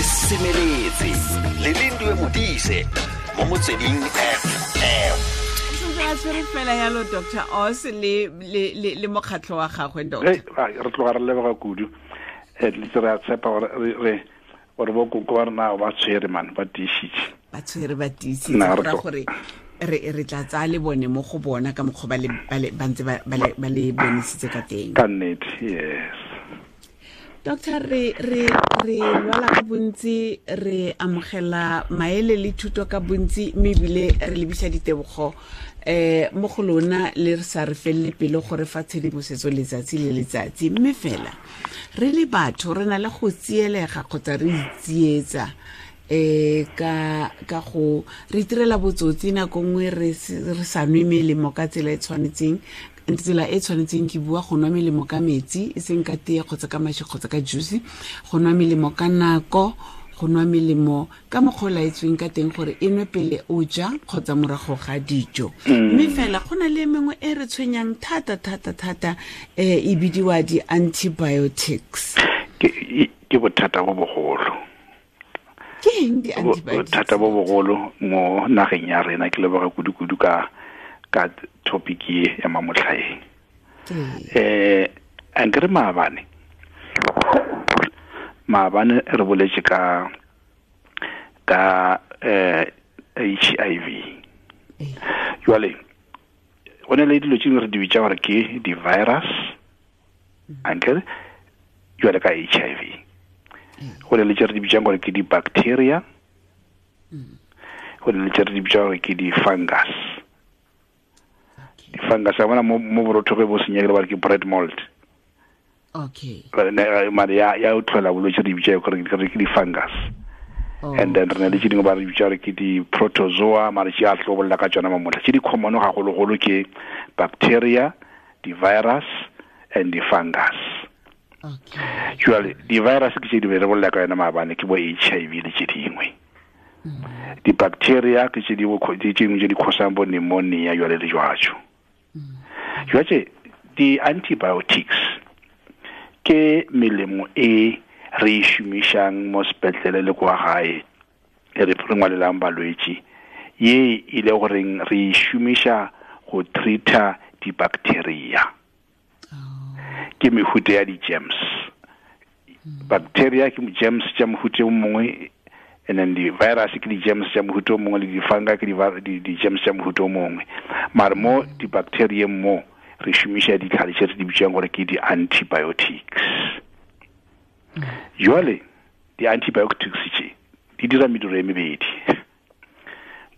Re semeletse le Lindiwe Modise mo Motsweding FM. Sentse a tshwere fela yalo Dr. Oz le mokgatlho wa gagwe, doctor. Re tloga re leboga kudu. Le re a tshepa gore re gore bo koko ba rena ba tshwere man, ba tiisitse. Ba tshwere, ba tiisitse, go ra gore re tla tsaya le bone mo go bona ka mokgwa ba ntse ba le bonisitse ka teng. Ka nnete, yes. Doctor, re lwala ka bontsi, re amogela maele le thuto ka bontsi, mme ebile re lebisa ditebogo mo go lona le re sa re felele pelo gore fa tshedimosetso letsatsi le letsatsi. Mme fela re le batho re na le go tsielega kgotsa re itsietsa ka go re itirela botsotsi nako nngwe, re sa nwe melemo ka tsela e tshwanetseng. Tsela e tshwanetseng ke bua go nwa melemo ka metsi, e seng ka tee kgotsa ka maši kgotsa ka juice, go nwa melemo ka nako, go nwa melemo ka mokgwa o laetsweng ka teng gore e nwe pele o ja kgotsa morago ga dijo. Mme fela go na le mengwe e re tshwenyang thata thata thata, e bidiwa di-antibiotics. Ke bothata bo bogolo. Ke eng di-antibiotics? Bothata bo bogolo mo nageng ya rena. Ke leboga kudu-kudu ka topic e ya mamotlhaeng. Ankere maabane re boletse ka HIV. Jwale go ne le dilo tse dingwe re di bitsa gore ke di-virus, ankere jwale ka HIV go ne le tse re di bitsang gore ke di-bacteria, go ne le tse re di bitsang gore ke di-fungus. Di-fungus a bona mo borotho ge bo senyegile ba re ke bread mold. Mare ya o tlhola bolwetse re di bitsa gore ke di-fungus. And then re na le tse dingwe ba re bitsa gore ke di-protozoa, mare tse a tlo bolela ka tsona mamotlha. Tse di common gagologolo ke bacteria, di-virus and di-fungus. Jwale di-virus ke tse di re bolela ka yona maabane, ke bo HIV le tse dingwe. Di-bacteria ke tse dingwe tse dingwe tse di cause-ang bo pneumonia jwale le jwajo. Jwale di-antibiotics ke melemo e re e šomišang mo sepetlele le kwa gae, e re ngwalelang balwetši, ye e le goreng re e šomiša go treat-a di-bacteria. Ke mehuta ya di-germs. Bacteria ke germs tša mohuta o mongwe, and then di-virus ke di-germs tša mohuta o mongwe, le di-fungi ke di-germs tša mohuta o mongwe. Mare mo di-bacterieng mo re šomiša ditlhare tše re di bitsang gore ke di-antibiotics. Jwale di-antibiotics tše di dira mediro e mebedi.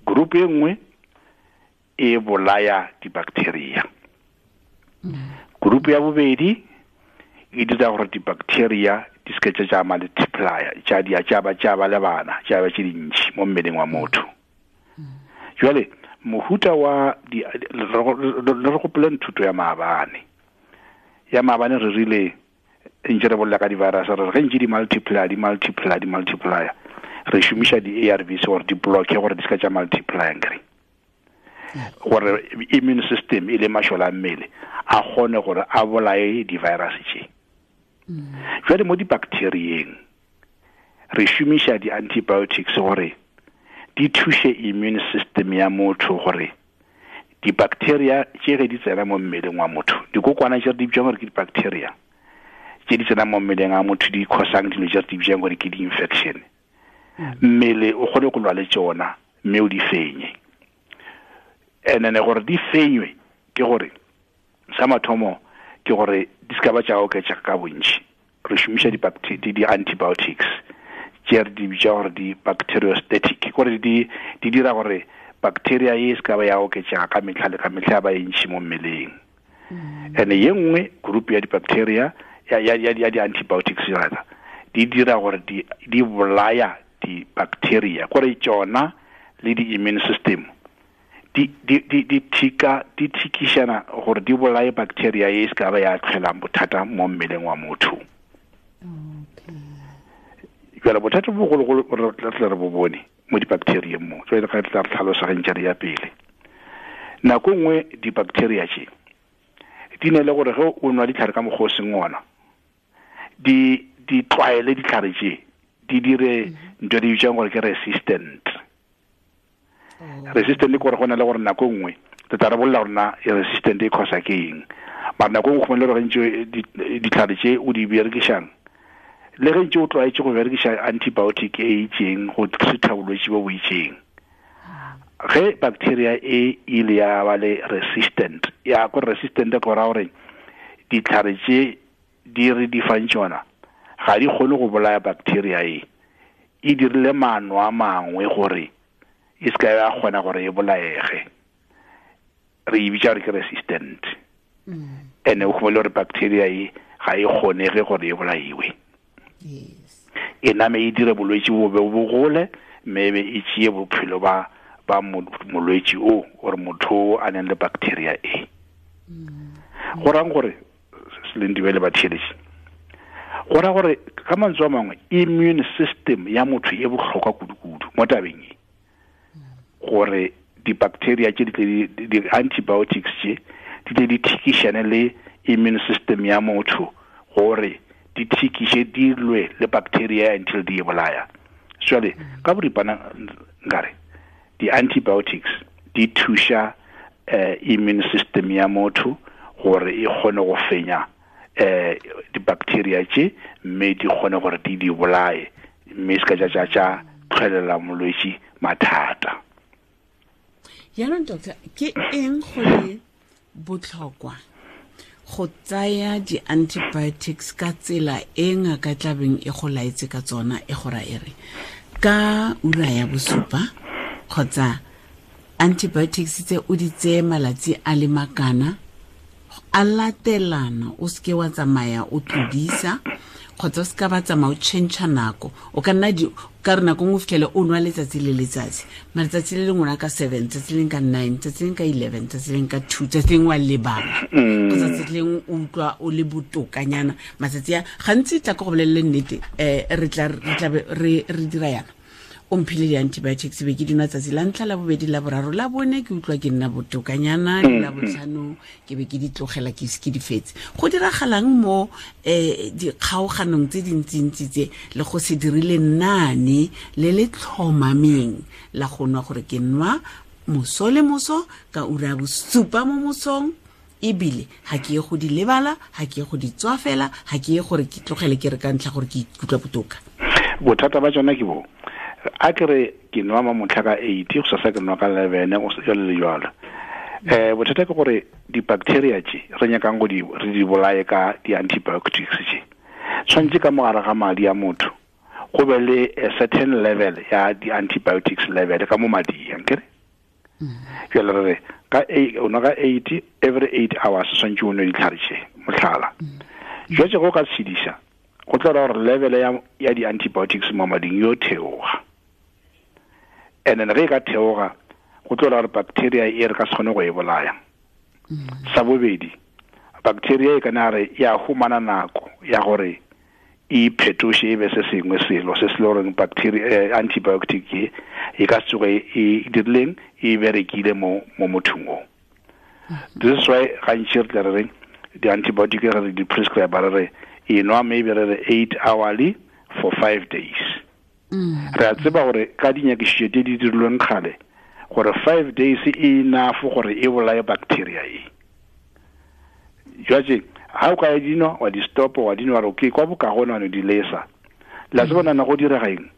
Group e nngwe e bolaya di-bacteria, group ya bobedi e dira gore di-bacteria di seke tša multiplya, tša dia tša ba le bana, tša ba tše dintši mo mmeleng wa motho. Jwale mohuta wa le re gopoleng thuto ya maabane. Ya maabane re rile ntse re bolela ka di-virus, re re ge ntse di multiply, di multiply, di multiply, re šomiša di-ARVs gore di blocke gore di seka tša multiply, nkere gore immune system e le mašole a mmele a kgone gore a bolaye di-virus tše. Jwale mo di-bacterieng re šomiša di-antibiotics gore di thuše immune system ya motho gore di-bacteria tše ge di tsena mo mmeleng wa motho, dikokwana tše re di bitsang gore ke di-bacteria tše di tsena mo mmeleng a motho di cause-ang dilo tše re di bitsang gore ke di-infection, mmele o kgone go lwa le tšona mme o di fenye. And then gore di fenywe ke gore sa mathomo ke gore di ska ba tša oketša ka bontši, re šomiša di-antibiotics tše re di bitša gore di-bacteriostatic, gore di dira gore bacteria e se ka ba ya oketšega ka metlha le ka metlha ya ba e ntšhi mo mmeleng. And ye nngwe group ya di-bacteria ya di-antibiotics rather di dira gore di bolaya di-bacteria, gore tšona le di-immune system di di di di thika di thikišana gore di bolaye bacteria e se ka ba ya tlholang bothata mo mmeleng wa motho. Jwale bothata bo bogologolo re tla re bo bone mo di-bacterieng mo, jwale ga re tla re tlhalosa ge ntse re ya pele. Nako nngwe di-bacteria tše di ne le gore ge o nwa ditlhare ka mokgwa o seng ona, di tlwaele ditlhare tše, Di dire ntho di bitsang gore ke resistant. Resistant ke gore go na le gore nako nngwe re tla re bolela gore na e resistant e causa ke eng, mara nako nngwe go le gore ntse ditlhare tše o di berekišang le ge ntse o tlwaetse go berekiša antibiotic e itseng go treata bolwetse bo bo itseng, ge bacteria e ile ya ba le resistant, ya ko resistant go ra gore ditlhare tše di re di fang tšona ga di kgone go bolaya bacteria e, e dirile maano a mangwe gore e se ka ya kgona gore e bolaege, re e bitša gore ke resistant. Ene o khumele gore bacteria e ga e kgonege gore e bolaiwe, e name e dire bolwetse bo be bo gole, mme be e tšee bophelo ba molwetši o gore motho a neng le bacteria e. Go rang gore Selendiwe le batheeletši, go ra gore ka mantswe a mangwe immune system ya motho e bohlokwa kudu-kudu mo tabeng e, gore di-bacteria tše di-antibiotics tše di tle di thikišane le immune system ya motho gore di thikiše di lwe le bacteria until di e bolaya. Jwale ka boripana nkare di-antibiotics di thuša immune system ya motho gore e kgone go fenya di-bacteria tše, mme di kgone gore di di bolaye, mme se ka tša tša tlholela molwetši mathata. Jaanong doctor, ke eng go le botlhokwa go tsaya di-antibiotics ka tsela e ngaka tlabeng e go laetse ka tsona, e go ra e re ka ura ya bosupa kgotsa antibiotics tse o di tseye malatsi a le makana a latelana, o seke wa tsamaya o tlodisa kgotsa o seka ba tsamaya o change nako, o ka nna ka re nako nngwe fitlhele o nwa letsatsi le letsatsi, matsatsi le lengwe ka 7, tsatsi leng ka 9, tsatsi leng ka 11, tsatsi leng ka 2, tsatsi leng wa lebala kgotsa tsatsi leng o utlwa o le botokanyana. Matsatsi a gantsi tla ko go bolelele nnete, re tla re dira yana, o mphile di-antibiotics be ke dinwa tsatsi la ntlha, la bobedi, la boraro, la bone ke utlwa ke nna botokanyana, la botlhano ke be ke di tlogela ke se ke di fetse. Go diragalang mo dikgaoganong tse dintsintsi tse le go se dirile nane le le tlhomameng la go nwa gore ke nwa moso le moso ka ura ya bosupa mo mosong, ebile ga ke ye go di lebala, ga ke ye go di tswafela, ga ke ye gore ke tlogele ke re ka ntlha gore ke ikutlwa botoka. Bothata ba tsona ke bo a ke re ke nwa mamotlha ka 8, go sasa ke nwa ka 11, go jalo le jalo. Bothata ke gore di-bacteria tše re nyakang go di re di bolaye ka di-antibiotics tše, tshwanetse ka mogare ga madi a motho go be le a certain level ya di-antibiotics level ka mo mading, ankere? Jalo re re ka o nwa ka 8, every 8 hours tshwanetse o nwe ditlhare tše, mohlala. Jwale go ka tshedisa go tla ra gore level ya di-antibiotics mo mading yo theoga, and then ge e ka theoga go tlo ra gore bacteria e re ka se kgone go e bolaya. Sa bobedi, bacteria e kana re ya humana nako ya gore e phetoše e be se sengwe selo se se le goreng bacteria antibiotic e e ka se tsoge e dirileng e berekile mo mothong o. This is why gantši re tla re reng di-antibiotic re di prescribe re re e nwa maybe re re 8 hourly for 5 days. Re a tseba gore ka dinyakišišo tse di dirilweng kgale gore 5 days e enough gore e bolaye bacteria e. Jwale ha o ka e dinwa wa di stop wa dinwa re okay kwa bokagone wa no di lesa, la tseba nana go direga eng,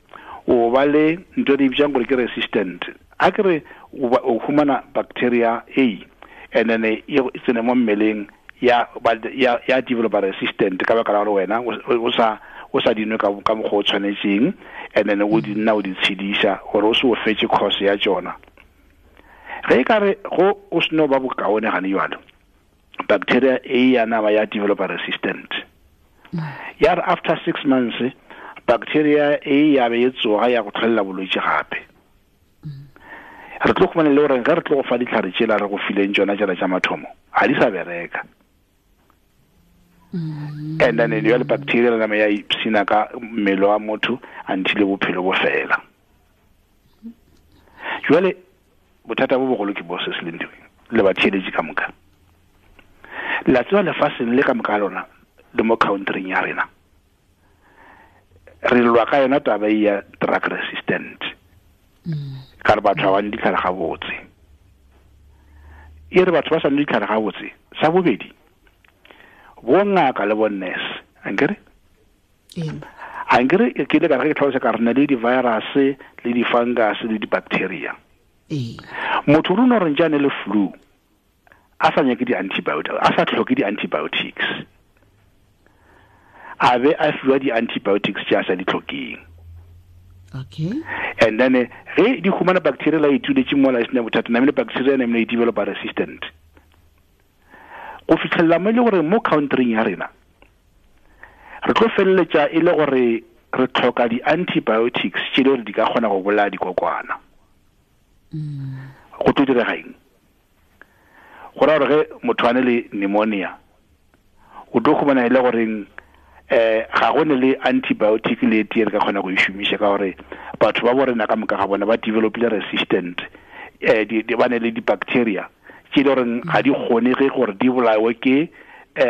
o ba le ntho e bitsang gore ke resistant. A ke re o humana bacteria A and then e tsene mo mmeleng ya develop resistant ka baka la gore wena o sa dinwe ka mokgwa o tshwanetseng, and then o di nna o di tshedisa gore o se o fetse course ya tsona. Ge e ka re go o seno ba bokaone gane jalo, bacteria A ya nama ya develop resistant. Ya re after 6 months bacteria A ya be e tsoga ya go tlholela bolwetse gape. Re tlo khumana le gore ge re tlo go fa ditlhare tšela re go fileng tsona tšela tša mathomo ga di sa bereka. And then jale bacteria le nama ya ipsina ka mmele wa motho until bophelo bo fela. Jwale bothata bo bogolo ke bo se se leng teng le batheeletši ka moka. La tseba lefaseng le ka moka lona le mo countryng ya rena, Re lwa ka yona taba ya drug resistant. Ka re batho ba nwe ditlhare gabotse. E re batho ba sa nwe ditlhare gabotse. Sa bobedi, bo ngaka le bo nurse, ankere? Ankere ke ile ka re ke tlhalosa ka re na le di-virus le di-fungus le di-bacteria. Motho rona re ntse le flu, a sa nyake di-antibiotics, a sa tlhoke di-antibiotics, a be a fiwa di-antibiotics tse a sa di tlhokeng. Okay. And then ge di humana bacteria la ituletse mola e sena bothata, namile bacteria namile e developa resistant. Go fitlhelela mo e le gore mo countryng ya rena re tlo feleletša e le gore re tlhoka di-antibiotics tše le gore di ka kgona go bolaya dikokwana. Go tlo direga eng? Go raya gore ge motho a ne le pneumonia, o tlo khumana e le goreng ga go ne le antibiotic le tee re ka kgona go e šomiša, ka gore batho ba bo rena ka moka ga bona ba developile resistant, ba ne le di-bacteria tše le goreng ga di kgonege gore di bolawe ke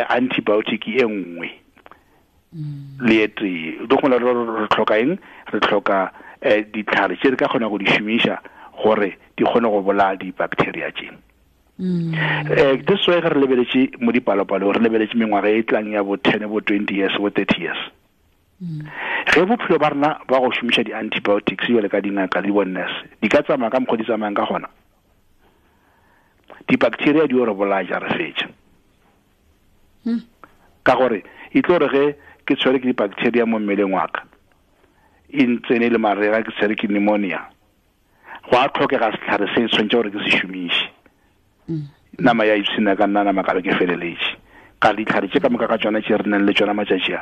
antibiotic e nngwe le e tee. O tlo kgona re tlhoka eng? Re tlhoka ditlhare tše re ka kgona go di šomiša gore di kgone go bolaya di-bacteria tše. This way re lebeletše mo dipalopalo, re lebeletše mengwaga e tlang ya bo 10, bo 20 years, bo 30 years. Ge bophelo ba rena ba go šomiša di-antibiotics jwale ka dingaka le bo-nurse di ka tsamaya ka mokgwa di tsamayang ka gona, di-bacteria di o re bolaya ja re fetša. Ka gore e tlo re ge ke tshwere ke di-bacteria mo mmeleng wa ka, e ntsene le marega, ke tshwere ke pneumonia, go a tlhokega setlhare se tshwanetse gore ke se šomiše. Nama ya ipshina ka nna nama ka be ke feleletše. Ka ditlhare tše ka moka ka tšona tše re nang le tšona matšatši a,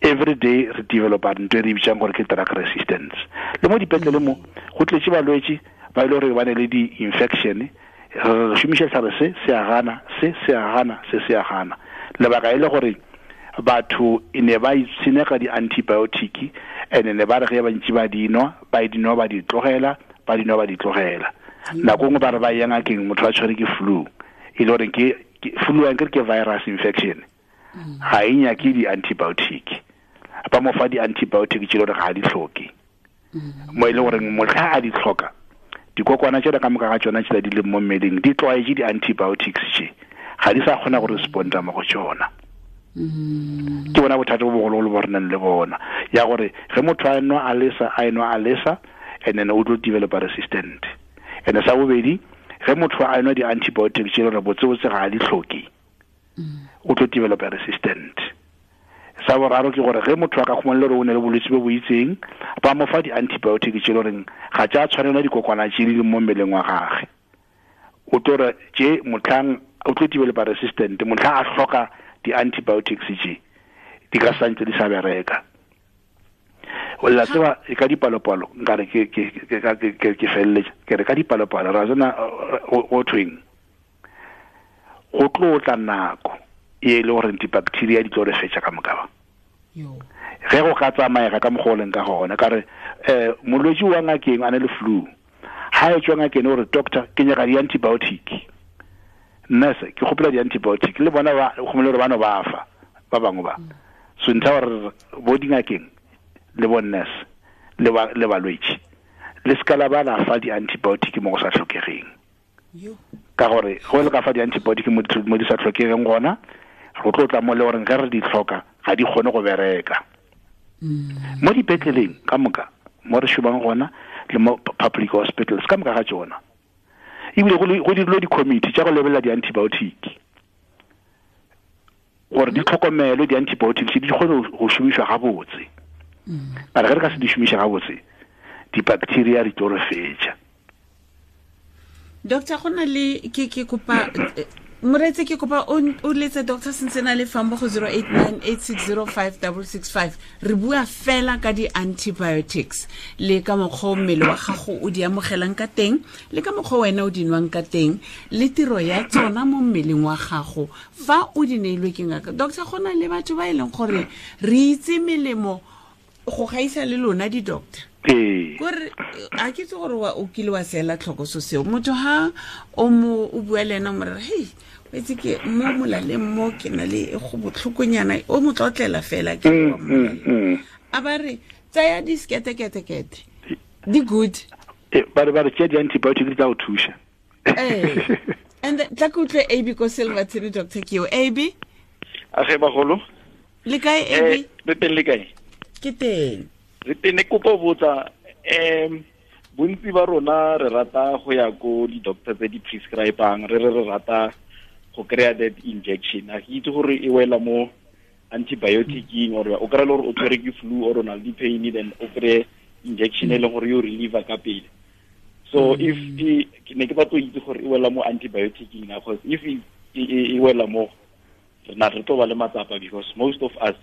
every day re developa ntho e re bitsang gore ke drug resistance. Le mo dipetlele mo go tletše balwetši ba ile gore ba ne le di-infection, re šomiša setlhare se se a gana, se se a gana, se se a gana. Lebaka e le gore batho e ne ba ipshina ka di-antibiotic, and ne ba re ge ba ntše ba di nwa, ba di nwa ba di tlogela, ba di nwa ba di tlogela. Nako nngwe ba re ba ya ngakeng, motho a tshwere ke flu, e le gore ke flu ankere ke virus infection, ga e nyake di-antibiotic, ba mo fa di-antibiotic tše le gore ga a di hloke. Mo e le gore motlha a di hloka, dikokwana tšela ka moka ga tšona tšela di leng mo mmeleng di tlwaetše di-antibiotics tše, ga di sa kgona go responda mo go tšona. Ke bona bothata bo bogologolo bo re nang le bona, ya gore ge motho a nwa a lesa, a enwa a lesa, and then o tlo developa resistant. And sa bobedi, ge motho a enwa di-antibiotics tše le gore botsebotse ga a di hloke, o tlo developa resistant. Sa boraro ke gore ge motho a ka khumana le gore o ne le bolwetse bo bo itseng, ba mo fa di-antibiotic tše le goreng ga tša tshwanela dikokwana tše di leng mo mmeleng wa gagwe, o tlo re tše motlhang o tlo developa resistant, motlhang a hloka di-antibiotics tše di ka santse di sa bereka. O la tseba e ka dipalopalo, nkare ke ke ke ke ke feleletša ke re ka dipalopalo ra tsena go thweng, go tlo tla nako e le gore di-bacteria di tlo re fetša ka moka ba. Ge go ka tsamaega ka mokgwa o leng ka gona, ka re molwetši wa ngakeng a ne le flu, ha e tswa ngakeng o re doctor ke nyaka di-antibiotic, nurse ke kgopela di-antibiotic, le bona ba gomele gore ba no ba fa ba bangwe ba. So ntlha gore bo dingakeng le bo nurse le balwetši le ska la ba la fa di-antibiotic mo go sa tlhokegeng. Ka gore go le ka fa di-antibiotic mo di sa tlhokegeng gona, go tlo tla mo le goreng ge re di tlhoka ga di kgone go bereka. Mo dipetleleng ka moka mo re šomang gona le mo public hospitals ka moka ga tšona, ebile go dirilwe di-committee tša go lebelela di-antibiotic gore di tlhokomelwe, di-antibiotics di kgone go šomišwa gabotse. Mara ge re ka se di šomiše gabotse, di-bacteria di tlo re fetša. Doctor, go na le ke kopa moreetsi, ke kopa o letse Doctor Sentsena le fang mo go 0898605665. Re bua fela ka di-antibiotics le ka mokgwa o mmele wa gago o di amogelang ka teng, le ka mokgwa wena o di nwang ka teng, le tiro ya tsona mo mmeleng wa gago fa o di neilwe ke ngaka. Doctor, go na le batho ba e leng gore re itse melemo go gaisa le lona di-doctor. Kore a ke itse gore o kile wa seela tlhoko so seo. Motho ha o mo o bua le ena o mo re, hei, o itse ke mo molaleng mo ke na le go botlhokonyana, o mo tlotlela fela ke wa molaleng. A ba re tsaya di sketeketekete di good. Ba re tšea di-antibiotic di tla go thuša. And tla ke utlwe AB ko Silverton, Dr. Keo. AB? Age bagolo. Le kae AB? Re teng le kae? Ke teng. Re teng ne kopo botsa bontsi ba rona re rata go ya ko di-doctor tse di prescribang, re re rata go kry-a that injection. A ke itse gore e wela mo antibioticing or o kry-a le gore o tshwere ke flu or o na le di-pain, then o kry-e injection e leng gore yo reliever ka pele. So if ne ke batlo itse gore e wela mo antibioticing na, because if e wela mo rena re tlo ba le matsapa, because most of us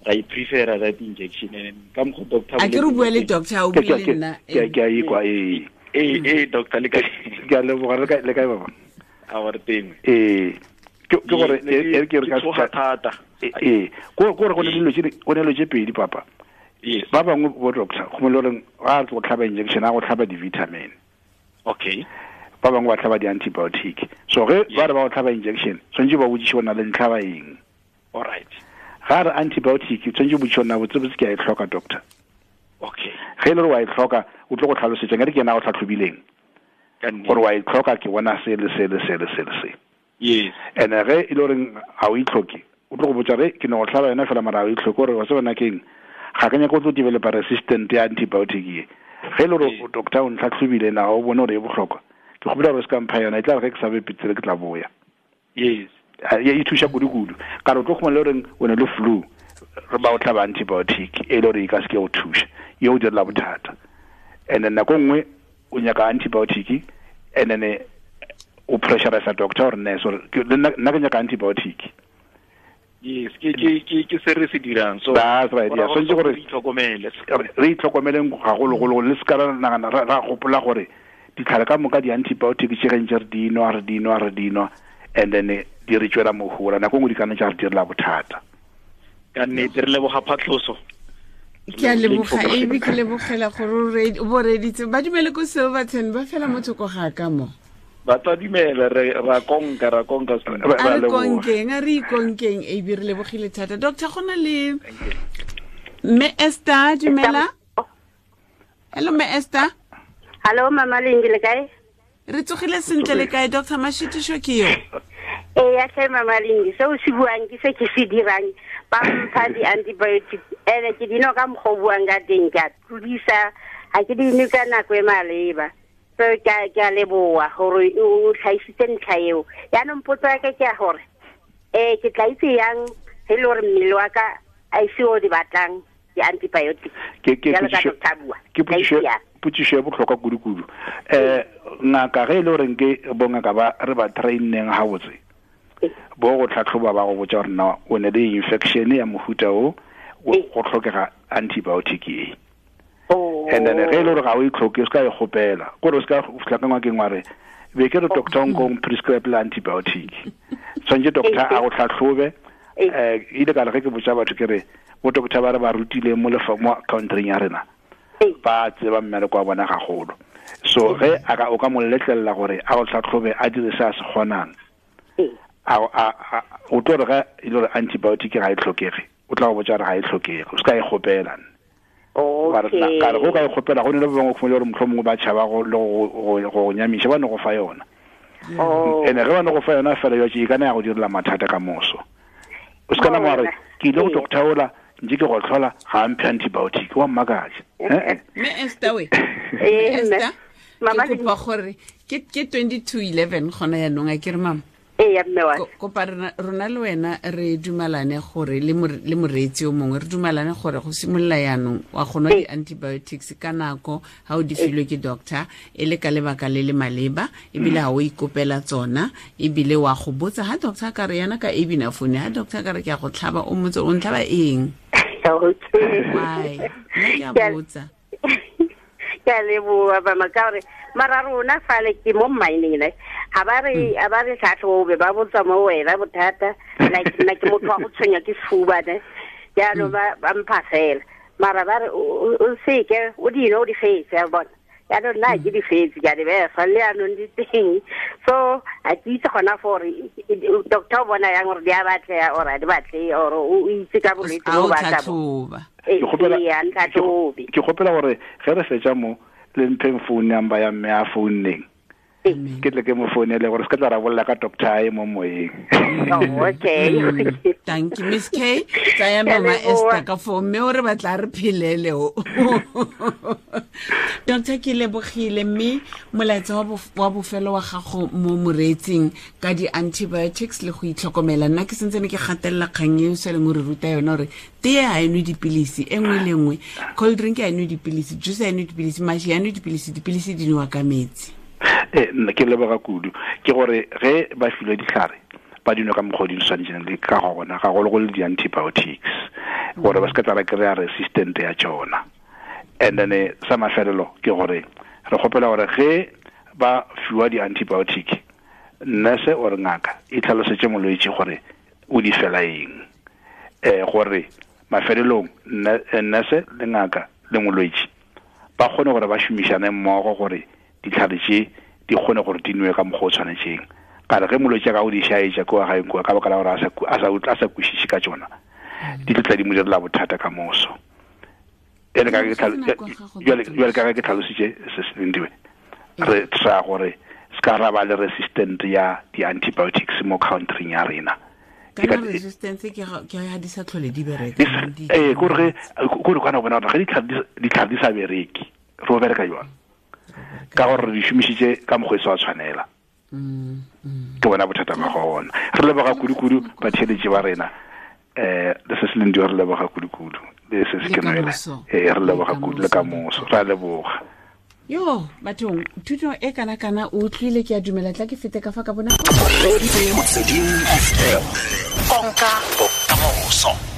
ra prefer that injection. And ka mokgo doctor a ke re bua le doctor o bua le nna ke a ikwa doctor le kae? Ke a leboga le kae baba? A wa re teng. Ke gore ke re ka thata. Go gore go ne dilo tse go ne dilo tse pedi papa. Ba bangwe bo doctor go mo le reng ga re go tlhaba injection a go tlhaba di-vitamin. Okay. Ba bangwe ba tlhaba di-antibiotic. So ge ba re ba go tlhaba injection tshwanetse ba botsiše bona le ntlhaba eng. All right. Ga re antibiotic tshwanetse botsiše bona botsebotse ke a e tlhoka doctor. Okay. Ge e le gore wa e tlhoka o tlo go tlhalosetsa nkare ke yena a go tlhatlhobileng gore wa e tlhoka ke bona se le se le se le se le se. Yes. And ge e le goreng ga o e tlhoke o tlo go botsa re ke ne go tlhaba yona fela mara ga o e tlhoke gore wa se bona keng ga ke nyaka go tlo developa resistant ya antibiotic ye. Ge e le gore doctor o ntlhatlhobile na o bone gore e bohlokwa ke kgopela gore se ka mpha yona e tla re ge ke sa be petsele ke tla boya. Yes. E thuša kudu-kudu ka re o tlo khumana le goreng o ne le flu re ba o tlhaba antibiotic e le gore e ka se ke go thuša ye o direla bothata. And then nako nngwe o nyaka antibiotic and then o pressurize doctor or nurse gore nna ke nyaka antibiotic. Yes, ke se re se dirang. So that's right. Yeah, so gore re itlhokomele. Re itlhokomeleng gagologolo le se ka ra nagana ra gopola gore ditlhare ka moka di-antibiotic tše ge ntse re dinwa and then di re tswela mohola nako nngwe di ka nna tša re direla bothata. Ka nnete re leboga phatlhoso. Ke a leboga AB, ke lebogela gore o bo reditse. Ba dumele ko Silverton ba fela mo thoko ga ka mo. Ba tla dumela ra konka a re konkeng, a re ikonkeng AB, re lebogile thata. Doctor, go na le Mme Esther, dumela. Hello Mme Esther. Hello Mama Lingi, le kae? Re tsogile sentle le kae Dr. Mashitisho ke yo? Ee, tlhe Mama Lingi, se o se buang ke se ke se dirang. Ba mpha di-antibiotic ene ke dino ka mokgwa o buang ka teng, ke a tlodisa, ga ke di nwe ka nako e maleba. So ke a leboa gore o tlhaisitse ntlha eo. Yaanong potso ya ka ke ya gore ke tla itse yang ge e le gore mmele wa ka a ise o di batlang di-antibiotic? Ke potšišo ya bohlokwa kudu-kudu. Ngaka ge e le goreng ke bongaka ba re ba traineng gabotse bo go tlhatlhoba ba go botsa gore na o ne le infection ya mohuta o go tlhokega antibiotic e. And then ge e le gore ga o e tlhoke o se ka e kgopela kore o se ka fitlha ka ngwakeng wa re be ke re doctor nkong prescribe le antibiotic. Tshwanetse doctor a go tlhatlhobe. Ile ka re ge ke botsa batho ke re bo doctor ba re ba rutileng mo countryng ya rena ba tseba mmereko wa bona gagolo. So ge o ka mo letlelela gore a go tlhatlhobe a dire se a se kgonang, o tlo re ge e le gore antibiotic ga e tlhokege o tla go botsa gore ga e tlhokege, o se ka e kgopela. Ka re go ka e kgopela go ne le ba bangwe khumele gore mohlomongwe ba tšhaba go le go nyamiša ba ne go fa yona. Ene ge ba ne go fa yona fela yo e kana ya go direla mathata ka moso. O se ka nama wa re ke ile go doctor ola ntse ke go tlhola ga mphe antibiotic wa mmakatša. Mme Esther we. Esther, ke kopa gore ke 22:11 gona yanong a ke re mama. Ee, mme wa. Kopa rona le wena re dumalane gore le moreetsi o mongwe re dumalane gore go simolola yanong wa go nwa di-antibiotics ka nako ga o di filwe ke doctor e le ka lebaka le le maleba, ebile ga o ikopela tsona, ebile wa go botsa ha doctor ka re yana ka ebina phone ha doctor ka re ke a go tlhaba o motse o ntlhaba eng. Why? Nna ke a botsa. Ke a leboa mama ka gore mara rona fale ke mo mining ne ha ba re tlhatlhobe ba botsa mo wena bothata like nna ke motho wa go tshwenya ke sefuba ne jaanong ba mpha fela mara ba re o seke o dino o di fetse a bona. Yaanong nna ke di fetse, ke a di befa le yaanong di teng. So a ke itse gona gore doctor o bona yang gore di a batlega or a di batle, or o itse ka bolwetse bo ba tla tlhatlhoba. Ke gopela gore ge re fetsa mo le mpheng phone number ya mme a founeng, ke tle ke mo founele gore se ka tla rabolla ka doctor e mo moyeng. Oh, okay. Thank you, Miss K. Tsaya mama Esther ka fo mme o re batla re phelele o. Doctor, ke lebogile, mme molaetsa wa bofelo wa gago mo moreetsing ka di-antibiotics le go itlhokomela. Nna ke sentse ne ke gatelela kgang e o sa leng o re ruta yona gore tee ga e nwe dipilisi e nngwe le nngwe, cold drink ga e nwe dipilisi, juice ga e nwe dipilisi, mashi ga e nwe dipilisi, dipilisi di nowa ka metsi. Nna ke leboga kudu ke gore ge ba filwe ditlhare ba dinwe ka mokgwa o di tshwanetseng le ka gona, gagologolo di-antibiotics, gore ba se ka tla ba kry-a resistant ya tsona. And then sa mafelelo ke gore re kgopela gore ge ba fiwa di-antibiotic, nurse or ngaka e tlhalosetse molwetse gore o di fela eng, gore mafelelong nurse le ngaka le molwetse ba kgone gore ba šomišane mmogo gore ditlhare tše di kgone gore di nwe ka mokgwa o tshwanetseng. Ka re ge molwetse a ka o di šaetša kua gaeng kua ka baka la gore a sa kwešiše ka tšona, di tlo tla di mo direla bothata ka moso. Ene ka jwale ka ge ke tlhalositše se se Lindiwe, re try gore se ka ra ba le resistant ya di-antibiotics mo countryng ya rena. Kana resistance ke ga di sa tlhole di bereka. Kore kore kana bona gore ge ditlhare di sa bereke, re o bereka jwang? Ka gore re di šomišitše ka mokgwa e sa tshwanela. Ke bona bothata ba gona. Re leboga kudu-kudu batheeletši ba rena. Le se se Lindiwe re leboga kudu-kudu. Le se se ke nwele. Re leboga kudu le ka moso. Re a leboga. Yo, bathong, thuto e kana-kana o utlwile, ke a dumela, tla ke fete ka fa ka bona. Konka bokamoso.